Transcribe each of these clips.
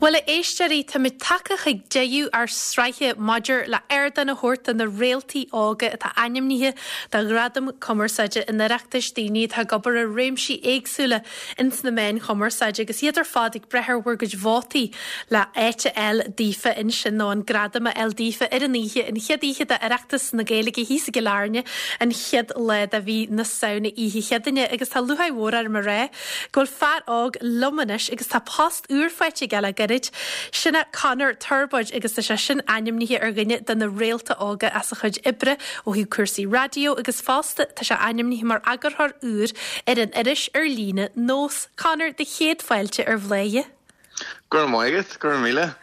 Bhuel, a éisteoirí, táimid tagtha chuig deireadh ár sraithe maidir le ardán a thabhairt do na réaltaí óga atá ainmnithe do Ghradaim Cumarsáide an Oireachtais, daoine atá ag obair i réimsí éagsúla ins na meáin chumarsáide agus iad ar fad ag brath ar bhur gcuid vótaí le áit a fháil daofa ansin nó an gradam a fháil daofa ar an oíche, an chéad oíche d'Oireachtas na Gaeilge thíos i gCill Airne, an chéad lá de mhí na Samhna, Oíche Chéadaoine. Agus tá lúcháir mhór orm a rá go bhfuil fear óg liom anois agus tá post úr faighte aige le gairid. Sin é Conor Torbóid agus tá sé sin ainmnithe ar dhuine de na réalta óga as a chuid oibre ó thaobh cúrsaí raidió agus fosta tá sé ainmnithe mar eagarthóir úr ar an iris ar líne Nós. Conor, do chéad fáilte ar Bhladhaire. Go raibh maith agat, go raibh míle.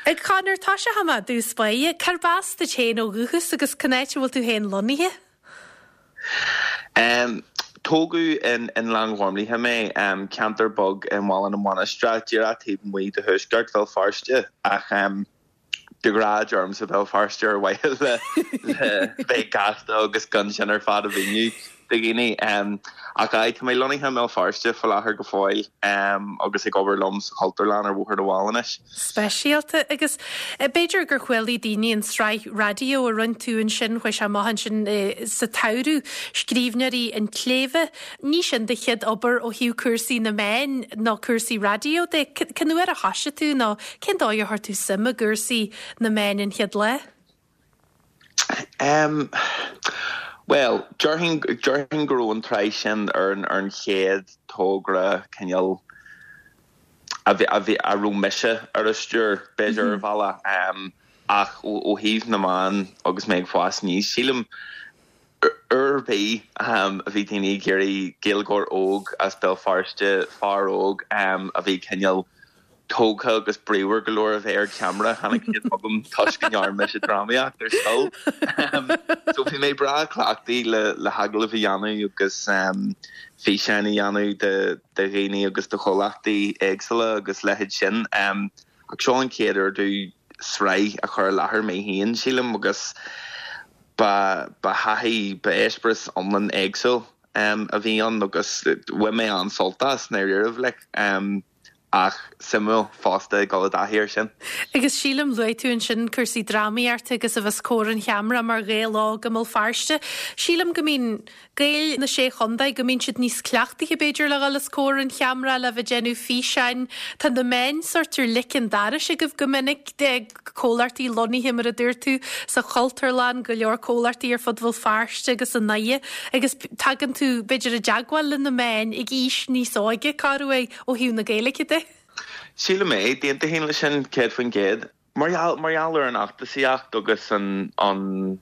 A Chonor, tosóidh mé i dtús báire. Cárb as duit féin ó dhúchas agus cén áit a bhfuil tú féin lonnaithe? Tógadh in Gleann Ghormlaithe mé, ceantar beag i mBaile na Mainistreach, díreach taobh amuigh de thuaisceart Bhéal Feirste, ach de ghnáth deirimse Béal Feirste ar mhaithe le bheith gasta agus gan sin ar fad a mhíniú do dhaoine. Ach aye, tá mé lonnaithe i mBéal Feirste faoi láthair go fóill agus ag obair liom sa Chultúrlann ar Bhóthar na bhFál anois. speisialta agus b'fhéidir gur chualaigh daoine an tsraith raidió a rinne tú ansin, chuaigh sé amach ansin sa tsamhradh, Scríbhneoirí an tSléibhe. Ní sin do chéad obair ó thaobh cúrsaí na meán nó cúrsaí raidió de. Cén uair a thoisigh tú nó cén dóigh ar chuir tú suim i gcúrsaí na meán an chéad lá? Em, bhuel, déarfainn, déarfainn go raibh an tsraith sin ar an, ar an chéad togra cineál a bhí, a bhí, a raibh mise ar a stiúir, b'fhéidir, ar bhealach. Em, ach ó, ó thaobh na meán agus mé ag fás aníos, sílim, uair ar bith, em, a bhí daoine ag iarraidh Gaeilgeoir óg as Béal Feirste, fear óg, em, a bhí cineál, tógtha agus bríomhar go leor a bheith ar cheamara, tháinig siad chugam toisc go ndearna mise drámaíocht ar scoil. So bhí mé breá cleachtaithe le le hagallaimh a dhéanamh agus físeáin a dhéanamh de de dhaoine agus de chomhlachtaí éagsúla agus leithéid sin. Ach seo an chéad uair domh sraith a chur i láthair mé féin, sílim, agus ba ba thaithí, ba eispéireas iomlán éagsúil a bhí ann agus bhain mé an-sult as, i ndáiríribh, like. Ach suimiúil fosta ag dul i dtaithí air sin. Agus sílim, luaigh tú ansin cúrsaí drámaíochta agus a bheith os comhair an cheamara mar Ghael óg i mBéal Feirste. Sílim go mbíonn Gaeil na Sé Chontae, go mbíonn siad níos cleachtaithe b'fhéidir le dhul os comhair an cheamara, le bheith ag déanamh físeáin. Tá na meáin sórt ar leic an dorais agaibh go minic. comhlachtaí lonnaithe, mar a dúirt tú, sa Chultúrlann, go leor comhlachtaí ar fud Bhéal Feirste agus i nDoire, agus tagann tú, b'fhéidir, i dteagmháil le na meáin ag aois níos óige, corruair, ó thaobh na Gaeilge de. Sílim é, d'aontóinn leis sin, 100%. Mar gheall, mar gheall ar an fheachtasaíocht agus an, an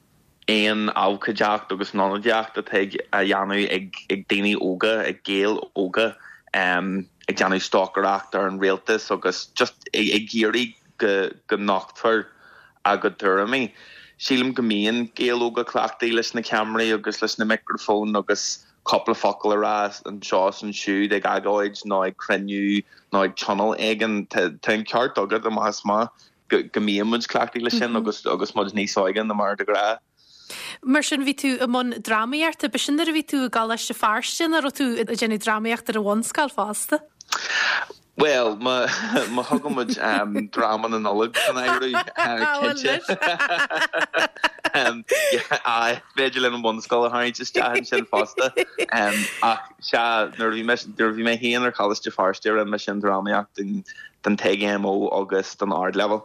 aon abhcóideacht agus an ionadaíocht atá ag, á dhéanamh ag, ag daoine óga, ag Gaeil óga, ag déanamh stocaireacht ar an rialtas agus just ag, ag iarraidh go go nochtfar a gcuid tuairimí. Sílim go mbíonn Gaeil óga cleachtaithe leis na ceamaraí agus leis na micreafóin agus cúpla focal a rá anseo is ansiúd ag agóid nó ag cruinniú nó ag tionól éigin. Tá an ceart agat amach is amach go go mbíonn muid cleachtaithe leis sin agus agus muid níos óige ná mar de ghnáth. Mar sin bhí tú i mbun drámaíochta, b'shin nuair a bhí tú i gColáiste Feirste nó raibh tú ag déanamh drámaíochta ar an bhunscoil fosta? Bhuel, má thugann muid dráma na Nollag san áireamh, cinnte. Aye, b'fhéidir linn an bhunscoil a tharraingt isteach ansin fosta. Ach sea, nuair a bhí mise, nuair a bhí mé féin ar Choláiste Feirste, rinne mise an drámaíocht don TGMO agus don Ardleibhéal.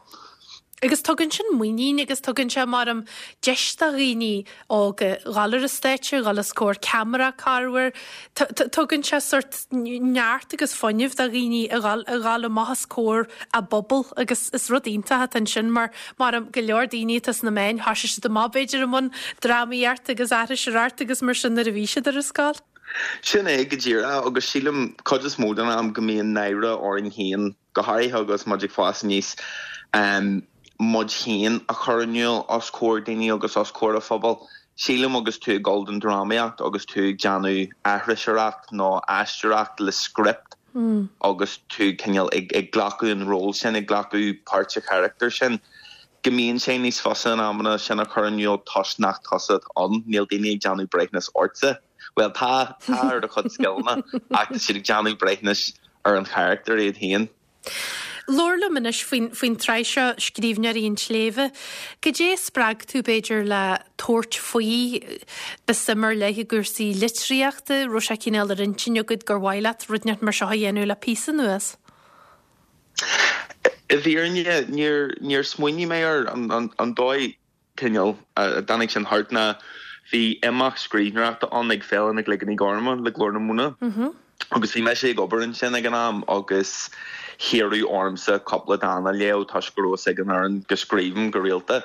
Agus tugann sin muinín agus tugann sé, maram, deis do dhaoine óga dhul ar an stáitse, dhul os comhair ceamara corruair. Tugann sé sórt neart agus fuinneamh do dhaoine a dhul, a dhul amach os comhair a bpobal agus is rud iontach atá ansin mar, maram, go leor daoine atá sna meáin, thoisigh siad amach b'fhéidir i mbun drámaíocht agus aithriseoireacht agus mar sin nuair a bhí siad ar an scoil. Sin é go díreach agus sílim cuid is mó den am go mbíonn náire orainn féin go háirithe agus muid ag fás aníos, muid féin a chur in iúl os comhair daoine agus os comhair an phobail. Sílim agus tú ag dul don drámaíocht agus tú ag déanamh aithriseoireacht nó aisteoireacht le script agus tú cineál ag glacadh an ról sin, ag glacadh páirt an charachtair sin, go mbíonn sé níos fusa in amanna sin a chur in iúl toisc nach tusa atá ann, níl daoine ag déanamh breithiúnas ortsa. Bhuel, tá, tá ar do chuid scileanna ach tá siad ag déanamh breithiúnais ar an charachtar iad féin. Labhair liom anois faoin, faoin tsraith seo, Scríbhneoirí an tSléibhe. Goidé a spreag tú, b'fhéidir, le tabhairt faoi? Ba suim ar leith i gcúrsaí litríochta, raibh sé cineál ar intinn agat gur mhaith leat rud inteacht mar seo a dhéanamh le píosa anuas? I bhfírinne, níor, níor smaoinigh mé air an, an, an dóigh. cineál a dtáinig sin thart ná bhí imeacht scríbhneoireachta ann ag Féile na gCloigeanna Gorma le Glór na Móna agus bhí mise ag obair ansin ag an am agus hiarradh ormsa cúpla dán a léamh toisc go raibh fhios ag an fhoireann go scríobhaim go rialta.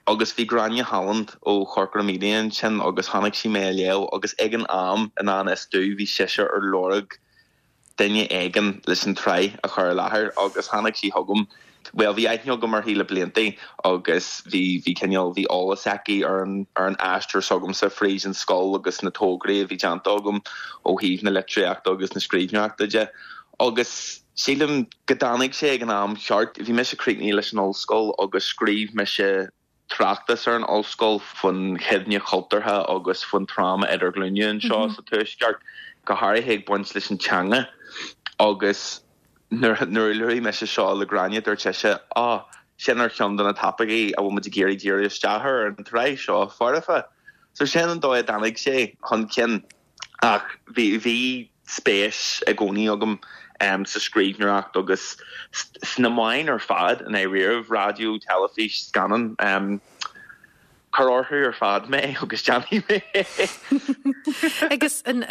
Agus bhí Gráinne Holland ó Chorcora Media ansin agus chonaic sí mé ag léamh agus ag an am i ngan fhios domh bhí sise ar lorg duine éigin leis an tsraith a chur i láthair agus tháinig sí chugam. Bhuel, bhí aithne agam uirthi le blianta agus bhí, bhí cineál, bhí eolas aici ar an, ar an aistear s'agamsa fríd an scoil agus na tograí a bhí déanta agam ó thaobh na litríochta agus na scríbhneoireachta de. Agus sílim go dtáinig sé ag an am cheart. Bhí mise críochnaithe leis an ollscoil agus scríobh mise tráchtas ar an ollscoil faoin chuimhne chultúrtha agus faoin tráma idirghlúine anseo sa Tuaisceart, go háirithe ag baint leis an teanga. Agus nuair a luaigh mise seo le Gráinne, dúirt sise, Á, sin ar cheann de na topaicí a bhfuil muid ag iarraidh díriú isteach air ar an tsraith seo, foirfe. So sin an dóigh a dtáinig sé chun cinn. Ach bhí, bhí spéis i gcónaí agam sa scríbhneoireacht agus sna meáin ar fad, i ndáiríribh, raidió, teilifís, scannán. Cuir orthu ar fad mé agus déanfaidh mé é. Agus an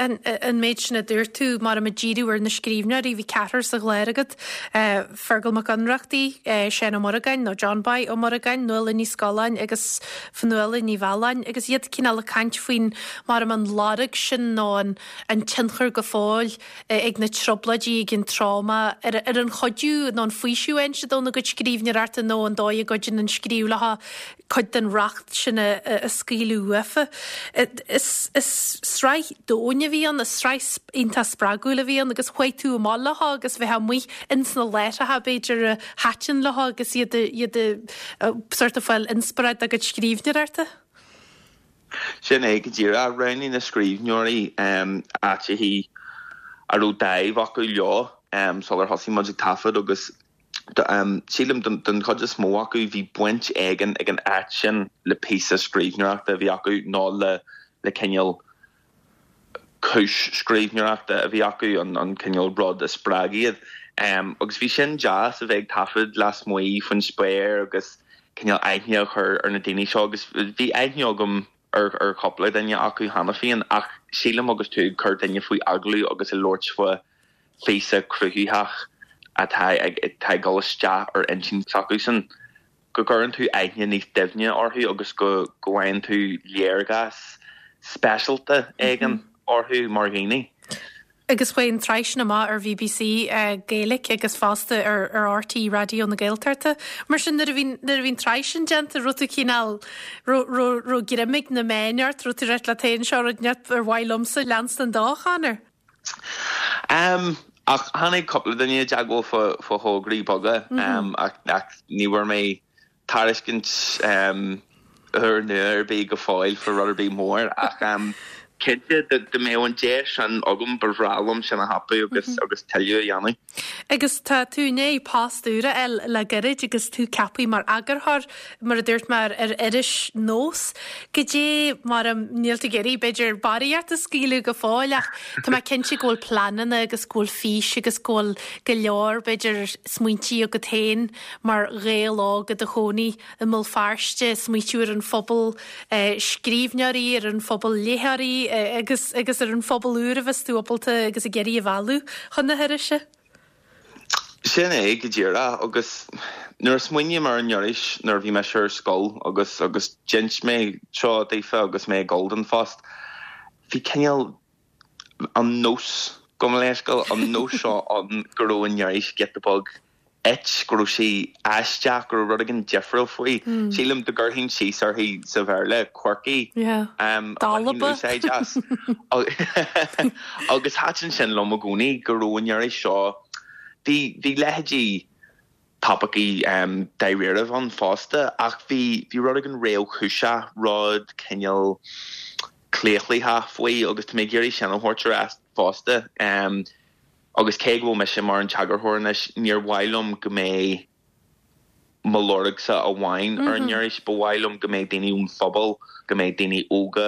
méid sin a dúirt tú, mar ag díriú ar na scríbhneoirí, bhí ceathrar sa chlár agat, Feargal Mac Ionnrachtaigh, Seán Ó Muireagáin, nó John Boy Ó Muireagáin, Nuala Ní Scolláin agus Fionnuala Ní Mhealláin, agus iad cineál ag caint faoin, mar an lorg sin nó an tionchar go fóill ag na trioblóidí, ag an tráma, ar an chuidiú nó an faoiseamh a fhaigheann siad óna gcuid scríbhneoireachta nó an dóigh a gcuidíonn an scríobh leo cuid den racht sin a scaoileadh uafa. Is sraith domhain a bhí ann, is sraith iontach spreagúil a bhí ann agus chuaigh tú amach leo agus bheith amuigh ins na láithreacha b'fhéidir a thaitin leo agus iad iad sort ag fáil inspioráid dá gcuid scríbhneoireachta. Sin é go díreach. Roghnaigh na scríbhneoirí áiteachaí a raibh dáimh acu leo sular thosaigh muid ag taifead agus Sílim, don chuid is mó acu, bhí baint éigin ag an áit sin le píosa scríbhneoireachta a bhí acu nó le cineál cúis scríbhneoireachta a bhí acu, an cineál rud a spreag iad. Agus bhí sin deas, a bheith ag taifead lasmuigh faoin spéir agus cineál aithne a chur ar na daoine seo agus bhí aithne agam ar chúpla duine acu cheana féin ach sílim agus tú ag cur duine faoi agallamh agus ag labhairt faoi phíosa cruthaitheach atá ag atá ag dul isteach ar intinn s'acusan, go gcuireann tú aithne níos doimhne orthu agus go go bhfaigheann tú léargas speisialta éigin orthu mar dhaoine. Agus chuaigh an tsraith sin amach ar BBC Gaeilge agus fosta ar ar RTÉ Raidió na Gaeltachta. Mar sin nuair a bhí nuair a bhí an tsraith sin déanta, raibh tú cineál, raibh raibh raibh greim ag na meáin ort, raibh tú ag rá leat féin seo rud ar mhaith liomsa leanstan dó, a Chonor? Ach tháinig cúpla duine i dteagmháil fá thograí beaga ach ní bhfuair mé tairiscint úrnua ar bith go fóill fá rud ar bith mór ach cinnte dá mbeadh an deis sin agam ba bhreá liom sin a thapú agus agus tuilleadh a dhéanamh. Agus tá tú i ndiaidh post úr a fháil le gairid agus tú ceaptha mar eagarthóir mar a dúirt mé, ar iris Nós. Goidé mar a, níl tú ag iarraidh, b'fhéidir, barraíocht a scaoileadh go fóill ach tá mé cinnte go bhfuil pleananna agus go bhfuil fís agus go bhfuil go leor, b'fhéidir, smaointí agat féin mar Ghael óg i do chónaí i mBéal Feirste, smaoitiú ar an phobal scríbhneoirí, ar an phobal léitheoirí agus agus ar an phobal úr a bheas tú ábalta agus ag iarraidh a mhealladh chun na hirise. Sin é go díreach. Agus nuair a smaoiním ar an iris nuair a bhí mise ar scoil agus agus d'inis mé seo daofa agus mé ag dul don phost, bhí cineál an nós, gabh mo leithscéal, an nós seo ann go raibh an iris giota beag it, go raibh sí aisteach, go raibh rud éigin difriúil faoi. Sílim dá gcuirfinn síos uirthi sa Bhéarla, quirky, a bhainfinn úsáid as. Agus thaitin sin liom i gcónaí, go raibh an iris seo, bhí, bhí leithéidí topaicí dáiríribh ann fosta, ach bhí, bhí rud éigin réamhchúiseach, rud cineál claochlaitheach faoi agus tá mé ag iarraidh sin a thabhairt ar ais fosta. Agus cé go bhfuil mise mar an t-eagarthóir anois, níor mhaith liom go mbeidh mo lorgsa amháin ar an iris, ba mhaith liom go mbeidh daoine ón phobal, go mbeidh daoine óga,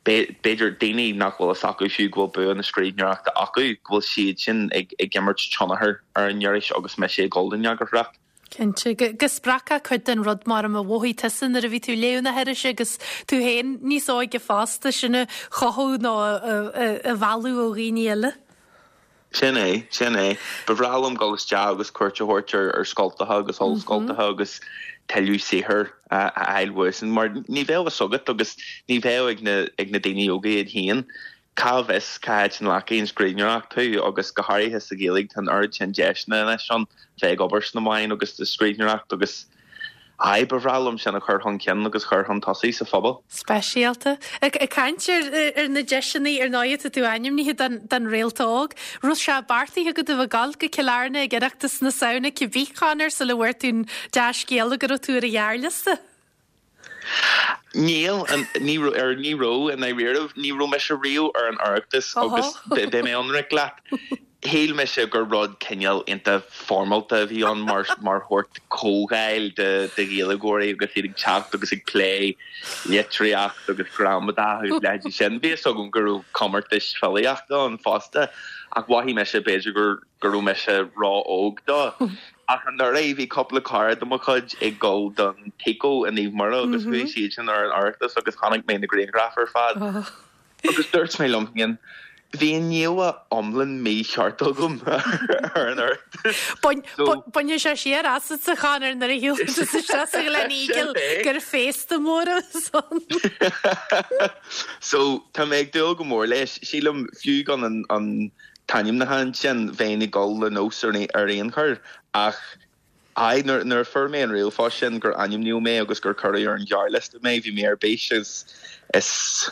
b'fhéidir daoine nach bhfuil fhios acu fiú go bhfuil bua na scríbhneoireachta acu, go bhfuil siad sin ag imirt tionchar ar an iris agus mise ag dul don eagarthóireacht. Cinnte. Go spreagfá cuid den rud mar a mhothaigh tusa nuair a bhí tú ag léamh na hirise agus tú féin níos óige fosta, sin a chothú nó a mhealladh ó dhaoine eile. Sin é, sin é. Ba bhreá liom dul isteach agus cuairt a thabhairt ar ar scoltacha agus ollscoltacha agus tuilleadh saothair a fháil uaidhsan mar ní bheadh fhios agat agus ní bheadh ag na ag na daoine óga iad féin Cá bhfios cá háit a nglacfaidh an scríbhneoireacht thú agus go háirithe sa Ghaeilge tá an oiread sin deiseanna anois ann bheith ag obair sna meáin agus sa scríbhneoireacht agus aye ba bhreá liom sin a chur chun cinn agus chur chun tosaigh sa phobal. Speisialta. Ag caint ar na deiseanna ar ndóigh tá tú ainmnithe don Réalta Óg. Raibh sé beartaithe agat a bheith ag dul go Cill Airne ag Oireachtas na Samhna cibé Conor sula bhfuair tú an dea-scéala go raibh tú ar an ghearrliosta? Níl, ní raibh, ní raibh, i ndáiríribh, ní raibh mise riamh ar an Oireachtas agus beidh mé ionraic leat, shíl mise gur rud cineál iontach foirmeálta a bhí ann mar mar shórt comhdháil de de Ghaeilgeoirí agus iad ag teacht agus ag plé litríocht agus gramadach agus leithéidí sin. Bhí fhios agam go raibh comórtais filíochta ann fosta ach mhothaigh mise b'fhéidir gur go raibh mise ró-óg dó. Ach anuraidh bhí cúpla cara de mo chuid ag dul don TICO i Naomh Muire agus chuaigh siadsan ar an Oireachtas agus chonaic mé na grianghraif ar fad agus dúirt mé liom féin, bhí an íomhá iomlán mícheart agam ar an Oireachtas. Bainfidh sé siar asat a Chonor nuair a shiúlann tú isteach sa Gleneagle gur féasta mór a bheas ann. So tá mé ag dúil go mór leis. Sílim fiú gan an t-ainmniúchán sin, bheinn ag dul le nós ar aon chor ach aye, nuair a fuair mé an ríomhphost sin gur ainmníodh mé agus gur cuireadh ar an ghearrliosta mé, bhí mé ar bís agus is,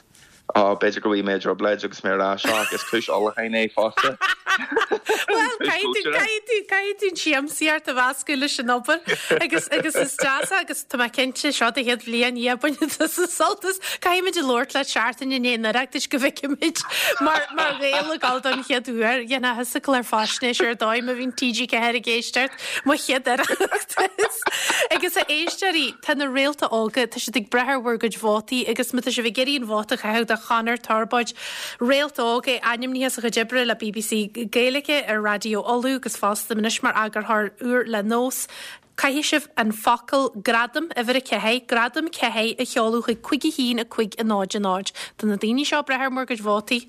oh, b'fhéidir go bhfuil mé i dtrioblóid agus mé ag rá seo ach is cúis ullmhúcháin é fosta. Bhuel, caithfidh tú, caithfidh tú, caithfidh tú an tsiamsaíocht a mheascadh leis an obair agus, agus is deas é agus tá mé cinnte, seo do chéad bhliain, yeah, bainfidh tusa sult as. Caithfimid a labhairt leat seachtain i ndiaidh an Oireachtais go bhfeicfimid mar mar Ghael ag dul don chéad uair. Dhéanfá thusa clár faisnéise ar dóigh má bhíonn TG4 ag éisteacht, mo chéad Oireachtas. Agus a éisteoirí, tá na réalta óga, tá siad ag brath ar bhur gcuid vótaí agus má tá sibh ag iarraidh an vóta a chaitheamh do Chonor Torbóid, réalt óg, é ainmnithe as a chuid oibre le bbc Gaeilge, ar Raidió Uladh agus fosta anois mar eagarthóir úr le Nós. Caithfidh sibh an focal 'Gradam', uimhir 4, Gradam 4, a sheoladh chuig 5 1 5 0 0. Do na daoine seo ag brath ar bhur gcuid vótaí,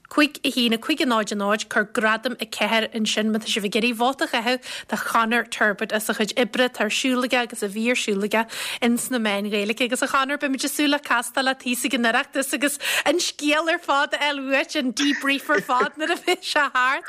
5 1 5 0 0, cuir Gradam 4 ansin má tá sibh ag iarraidh vóta a chaitheamh do Chonor Turbitt as a chuid oibre atá ar siúl aige agus a bhí ar siúl aige ins na meáin Ghaeilge. Agus a Chonor, beimid ag súil le castáil leat thíos ag an Oireachtas agus an scéal ar fad a fháil uait, an debrief ar fad nuair a bheidh sé thart.